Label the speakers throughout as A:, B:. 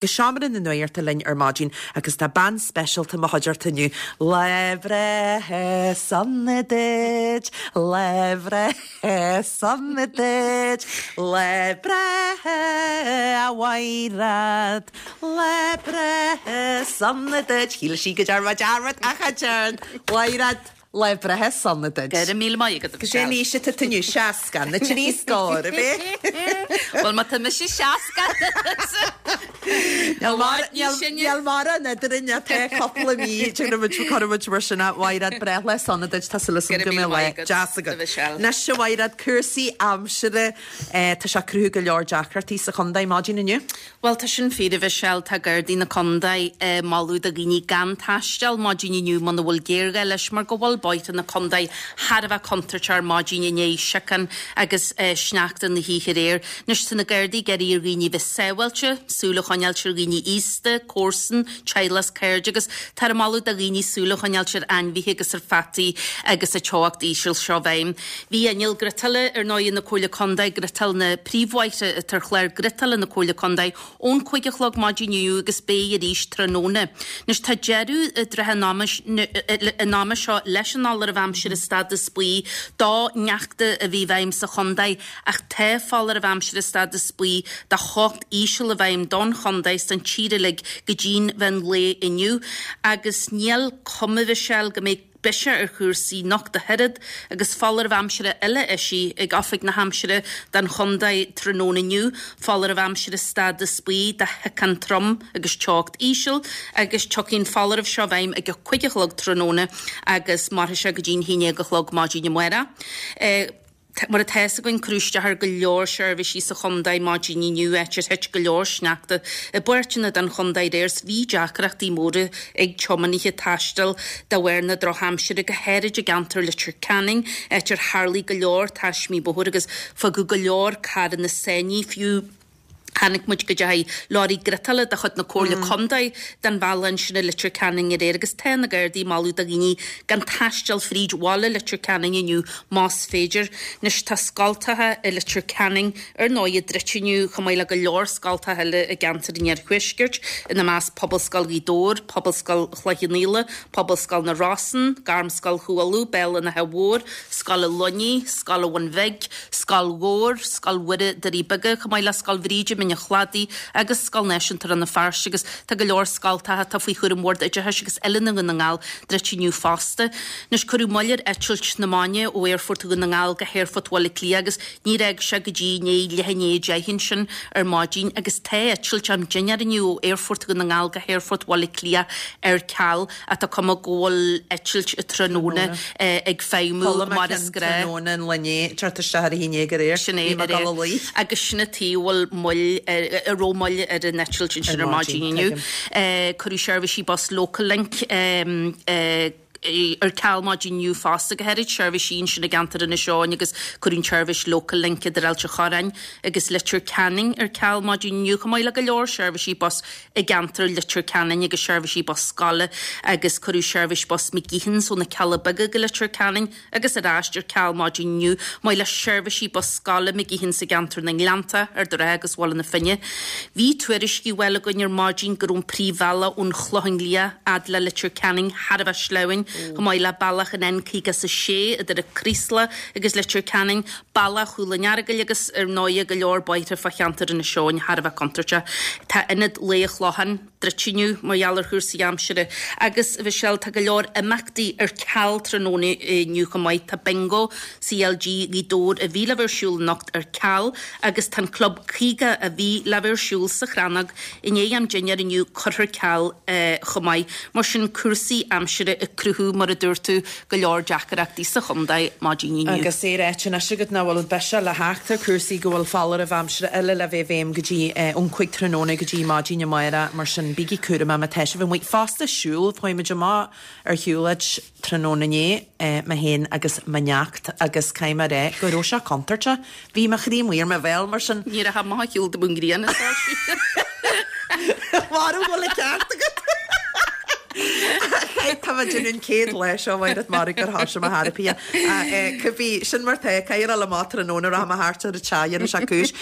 A: Go seomra na nuachta linn ar maidin agus tá bean speisialta i mo chuideachta inniu. Lá breithe sona duit, lá breithe sona duit, lá breithe a Mhaighread, lá breithe sona duit. Shíl sí go ndearn mé dearmad ach cha dtearn. Mhaighread. Lá breithe sona duit.
B: Go raibh míle maith agat, a
A: Cén aois atá tú inniu? 60. Na trí scór, ab
B: é? Bhuel, má tá mise 60,
A: Níl mórán eadrainn ach tá cúpla mí, cuirfidh muid mar sin a Mhaighread, breithlá sona duit, tá súil agam go mbeidh lá deas agat. Anois a Mhaighread, cúrsaí aimsire, tá sé ag cruthú go leor deacrachtaí sa chontae maidin inniu.
B: Bhuel, tá sin fíor, a Mhichelle. Tá Gardaí na Condae ag moladh do dhaoine gan taisteal maidin inniu muna bhfuil géarghá leis mar go bhfuil bóithre na condae thar a bheith contúirteach ar maidin i ndiaidh siocán agus sneachta na hoíche aréir. Anois tá na Gardaí ag iarraidh ar dhaoine bheith sábháilte, súil a choinneáilt ar dhaoine aosta, comharsan, teaghlach 's cairde agus táthar ag moladh do dhaoine súil a choinneáilt ar ainmhithe agus ar pheataí agus an teocht íseal seo i bhfeidhm. Bhí inneall griotála ar ndóigh na Comhairle Contae ag griotáil na príomhbhóithre atá ar chlár griotála na Comhairle Contae ón 5 a chlog maidin inniu agus beidh arís tráthnóna. Anois tá deireadh i dtrátha an ama seo leis an fholáireamh aimsire stádas buí do shneachta a bhí i bhfeidhm sa chontae ach tá foláireamh aimsire stádas buí do theocht íseal i bhfeidhm don chontae 's don tír uilig go dtí'n mheán lae inniu agus níl cuma Mhichelle go mbeidh biseach ar chúrsaí anocht ach oiread agus foláireamh aimsire eile eisithe ag Oifig na hAimsire don chontae tráthnóna inniu, foláireamh aimsire stádas buí do shiocán trom agus teocht íseal agus tiocfaidh an foláireamh seo i bhfeidhm ag a 5 a chlog tráthnóna agus mairfidh sé go dtí'n 11 a chlog maidin amárach. Mar atá fhios againn, cuireadh isteach ar go leor seirbhísí sa chontae maidin inniu, áit ar thit go leor sneachta i bpáirteanna den chontae aréir 's bhí deacrachtaí móra ag tiománaithe taisteal de bharr na drochaimsire, go háirid i gceantar Leitir Ceanainn, áit ar tharlaigh go leor taismí bóthair agus fágadh go leor carranna sáinnithe fiú. Chonaic muid go dteachaigh leoraí griotála de chuid na Comhairle Contae den bhealach ansin i Leitir Ceanainn aréir agus tá na Gardaí ag moladh do dhaoine gan taisteal fríd bhaile Leitir Ceanainn inniu más féidir. Anois tá scoltacha i Leitir Ceanainn ar ndóigh druidte inniu chomh maith le go leor scoltacha eile i gceantar an Iarthuaiscirt, ina measc Pobalscoil Ghaoth Dobhair, Pobalscoil Chloich Cheann Fhaola, Pobalscoil na Rosann, Gairmscoil Chú Uladh, Béal an Átha Mhóir, Scoil an Luinnigh, Scoil an Bhun Bhig, Scoil Ghabhar, Scoil Mhuire, Doirí Beaga, chomh maith le Scoil Bhríde, Mín an Chladaigh agus Scoil Náisiúnta Rann na Feirste agus tá go leor scoltacha atá faoi chúram Bhord Oideachais agus Oiliúna Dhún na nGall druidte inniu fosta. Anois cuireadh moill ar eitilt na maidine ó Aerfort Dhún na nGall go hAerfort Bhaile Átha Cliath agus níor fhág sé go dtí i ndiaidh leath i ndiaidh 10 ansin ar maidin agus tá eitilt am dinnéar inniu ó Aerfort Dhún na nGall go hAerfort Bhaile Átha Cliath ar ceal. Ach tá cuma go bhfuil eitilt tráthnóna ag feidhmiú mar is gnách.
A: Tráthnóna an lae inné, teacht isteach ar a haon déag aréir.
B: Sin é, aréir. Agus sin an tuige a bhfuil moill, a raibh moill ar an eitilt ansin ar maidin inniu. Cuireadh seirbhísí bus Local Link ar ceal maidin inniu fosta, go háirid seirbhísí ansin i gceantar Inis Eoghain agus cuireadh an tseirbhís Local Link idir Ailt an Chorráin agus Leitir Ceanainn ar ceal maidin inniu, chomh maith le go leor seirbhísí bus i gceantar Leitir Ceanainn agus seirbhísí bus scoile agus cuireadh seirbhís bus McGeehans ó na Cealla Beaga go Leitir Ceanainn agus ar ais ar ceal maidin inniu, maith le seirbhísí bus scoile McGeehans i gceantar na nGleannta, Ard an Rátha agus Bhaile na Finne. Bhí tuairiscí á bhfáil againn ar maidin go raibh an príomhbhealach ón Chlochán Liath fhad le Leitir Ceanainn thar a bheith sleamhain, chomh maith le bealach an N56 idir an Craoslach agus Leitir Ceanainn, Bealach Chúil an Earagail agus, ar ndóighe, go leor bóithre fá cheantar Inis Eoghain thar a bheith contúirteach. Tá Ionad Lae an Chlocháin druidte inniu mar gheall ar chúrsaí aimsire agus, a Mhichelle, tá go leor imeachtaí ar ceal tráthnóna inniu chomh maith. Tá Bingo CLG Ghaoth Dobhair a bhí le bheith ar siúl anocht ar ceal agus tá an Club 50 a bhí le bheith ar siúl sa Chrannóg i ndiaidh am dinnéir inniu curtha ar ceal chomh maith. Mar sin, cúrsaí aimsire ag cruthú, mar a dúirt tú, go leor deacaireachtaí sa chontae maidin inniu.
A: Agus é ráite anois agat nach bhfuil biseach le theacht ar chúrsaí, go bhfuil foláireamh aimsire eile le bheith i bhfeidhm go dtí ón 5 tráthnóna go dtí maidin amárach, mar sin bígí cúramach má tá sibh amuigh. Fosta siúl, chuaigh muid amach ar shiúlóid tráthnóna inné, mé féin agus mo neacht agus caithfidh mé a rá go raibh sé contúirteach. Bhí mo chroí amuigh ar mo bhéal, mar sin.
B: Ní raibh amach ar shiúl de bhun grian is
A: Mara bhfuil an ceart agat. Tá mé ag déanamh an chéad lá seo Mhaighread Mara gur thoisigh mo therapy. Cibé, sin mar tá, caithfidh a dhul amach tráthnóna rachaidh mé thart ar an teach dhéanfaidh sé cúis.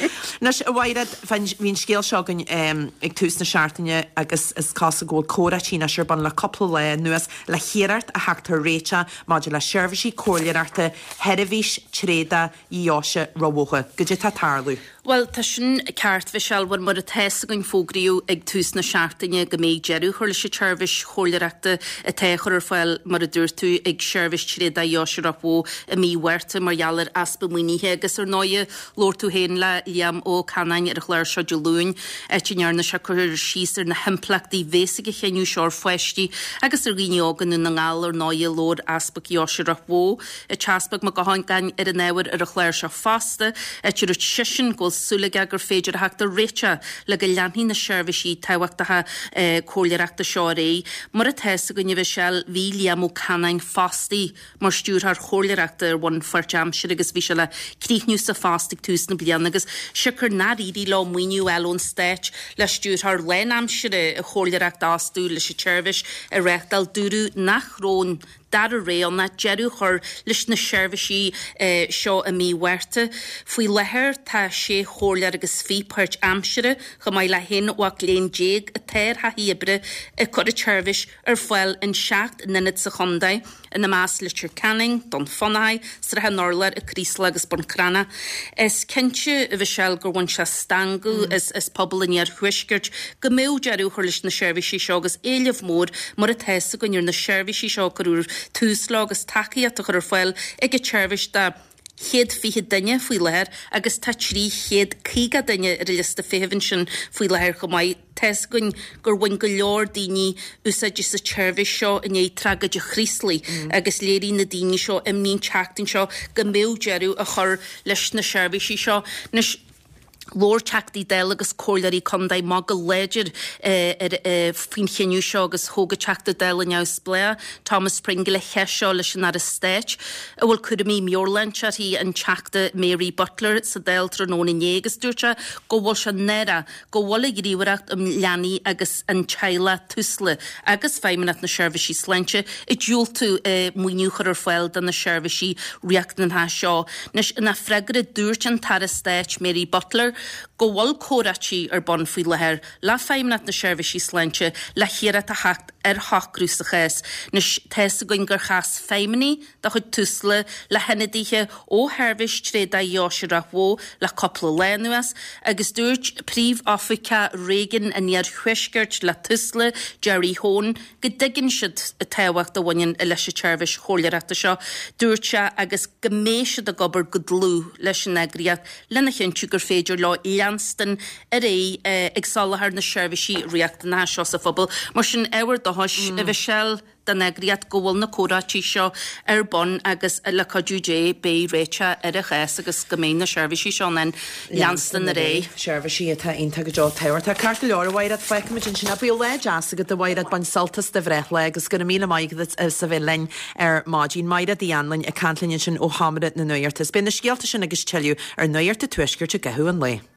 A: Anois, a Mhaighread, bhí an scéal seo againn ag tús na seachtaine agus is cosúil go bhfuil comhráití anois ar bun le cúpla lá anuas le hiarracht a theacht ar réiteach maidir le seirbhísí comhairleoireachta Sheirbhís Tréadach Dheoise Ráth Bhoth. Goidé tá ag tarlú?
B: Bhuel, tá sin ceart, Mhichelle, bhuel, mar atá fhios againn fógraíodh ag tús na seachtaine go mbeidh deireadh á chur leis an tseirbhís chomhairleoireachta atá á chur ar fáil, mar a dúirt tú, ag Seirbhís Tréadach Dheoise Ráth Bhoth i mí Mhárta mar gheall ar easpa maoinithe agus, ar ndóighe, labhair tú féin le Liam Ó Canáin ar an chlár seo Dé Luain, áit a ndearna sé cur síos ar na himpleachtaí bhéas ag an chinneadh seo ar pháistí agus ar dhaoine óga i nDún na nGall, ar ndóighe, labhair Easpag Dheoise Ráth Bhoth. An tEaspag Mac Gabhann ar an ábhar ar an chlár seo fosta, áit a dúirt seisean go bhfuil súil aige gur féidir a theacht ar réiteach le go leanfaidh na seirbhísí tábhachtacha comhairleoireachta seo ar aghaidh. Mar atá fhios againn, a Mhichelle, bhí Liam Ó Canáin fostaithe mar stiúrthóir chomhairleoireachta ar bhonn pháirtaimseartha agus bhí sé le críochnú sa phost ag tús na bliana agus siocair nár éirigh leo maoiniú a fháil ón Stát le stiúrthóir lánaimseartha chomhairleoireachta a fhostú leis an tseirbhís a reáchtáil, dúradh nach raibh an dara rogha ann ach deireadh a chur leis na seirbhísí seo i mí Mhárta. Faoi láthair tá sé chomhairleoir agus 20 páirtaimseartha, chomh maith le haon mhac léinn déag atá ar thaithí oibre ag cur an tseirbhís ar fáil in 7 n-ionad sa chontae, ina measc Leitir Ceanainn, Dún Fionnachaidh, Srath an Urláir, An Craoslach agus Bun Cranncha. Is cinnte, a Mhichelle, gur bhain sé stangadh as pobal an iarthuaiscirt go mbeadh deireadh á chur leis na seirbhísí seo agus éileamh mór mar atá fhios againn ar na seirbhísí seo a cuireadh tús leo agus tacaíocht á chur ar fáil ag an tseirbhís do 120 duine faoi láthair agus tá 350 duine ar an liosta feithimh ansin faoi láthair chomh maith. Tá fhios againn gur bhain go leor daoine úsáid as an tseirbhís seo i ndiaidh tragóid an Chraoslaigh agus léirigh na daoine seo imní an tseachtain seo go mbeadh deireadh á chur leis na seirbhísí seo. Anois, labhair Teachtaí Dála agus Comhairleoirí Contae amach go láidir ar faoin chinneadh seo agus thóg an Teachta Dála neamhspleách, Thomas Pringle an cheist seo leis an Aire Stáit a bhfuil cúraimí meabhairshláinte uirthi, an Teachta Mary Butler sa Dáil tráthnóna inné agus dúirt sé go bhfuil sé náireach go bhfuil an Ghníomhaireacht um Leanaí agus an Teaghlach, Tusla, agus Feidhmeannacht na Seirbhísí Sláinte ag diúltú maoiniú a chur ar fáil do na seirbhísí riachtanacha seo. Anois, ina freagra, dúirt an tAire Stáit Mary Butler go bhfuil comhráití ar bun faoi láthair le Feidhmeannacht na Seirbhísí Sláinte le hiarracht a theacht ar shocrú sa chás. Anois, tá fhios againn gur chas feidhmeannaigh de chuid Tusla le hionadaithe ó Sheirbhís Tréadach Dheoise Ráth Bhoth le cúpla lá anuas agus dúirt Príomhoifigeach Réigiún an Iarthuaiscirt le Tusla, Gerry Hone, go dtuigeann siad an tábhacht a bhaineann leis an tseirbhís chomhairleoireachta seo. Dúirt sé agus go mbeidh siad ag obair go dlúth leis an eagraíocht lena chinntiú gur féidir leo leanstan ar aghaidh ag soláthar na seirbhísí riachtanacha seo sa phobal. Mar sin, ábhar dóchais, a Mhichelle. don eagraíocht go bhfuil na comhráití seo ar bun agus le cuidiú Dé beidh réiteach ar an chás agus go mbeidh na seirbhísí seo in ann leanstan ar aghaidh.
A: Seirbhísí atá iontach go deo tábhachtach. Ceart go leor, a Mhaighread, fágfaimid ansin é. Bíodh lá deas agat, a Mhaighread, bain sult as do bhreithlá agus go raibh míle maith agat as a bheith linn ar maidin. Maighread Uí Anluain ag caint linn ansin ó Sheomra na Nuachta. Is beidh na scéalta sin agus tuilleadh ar Nuacht an Tuaiscirt i gcaitheamh an lae.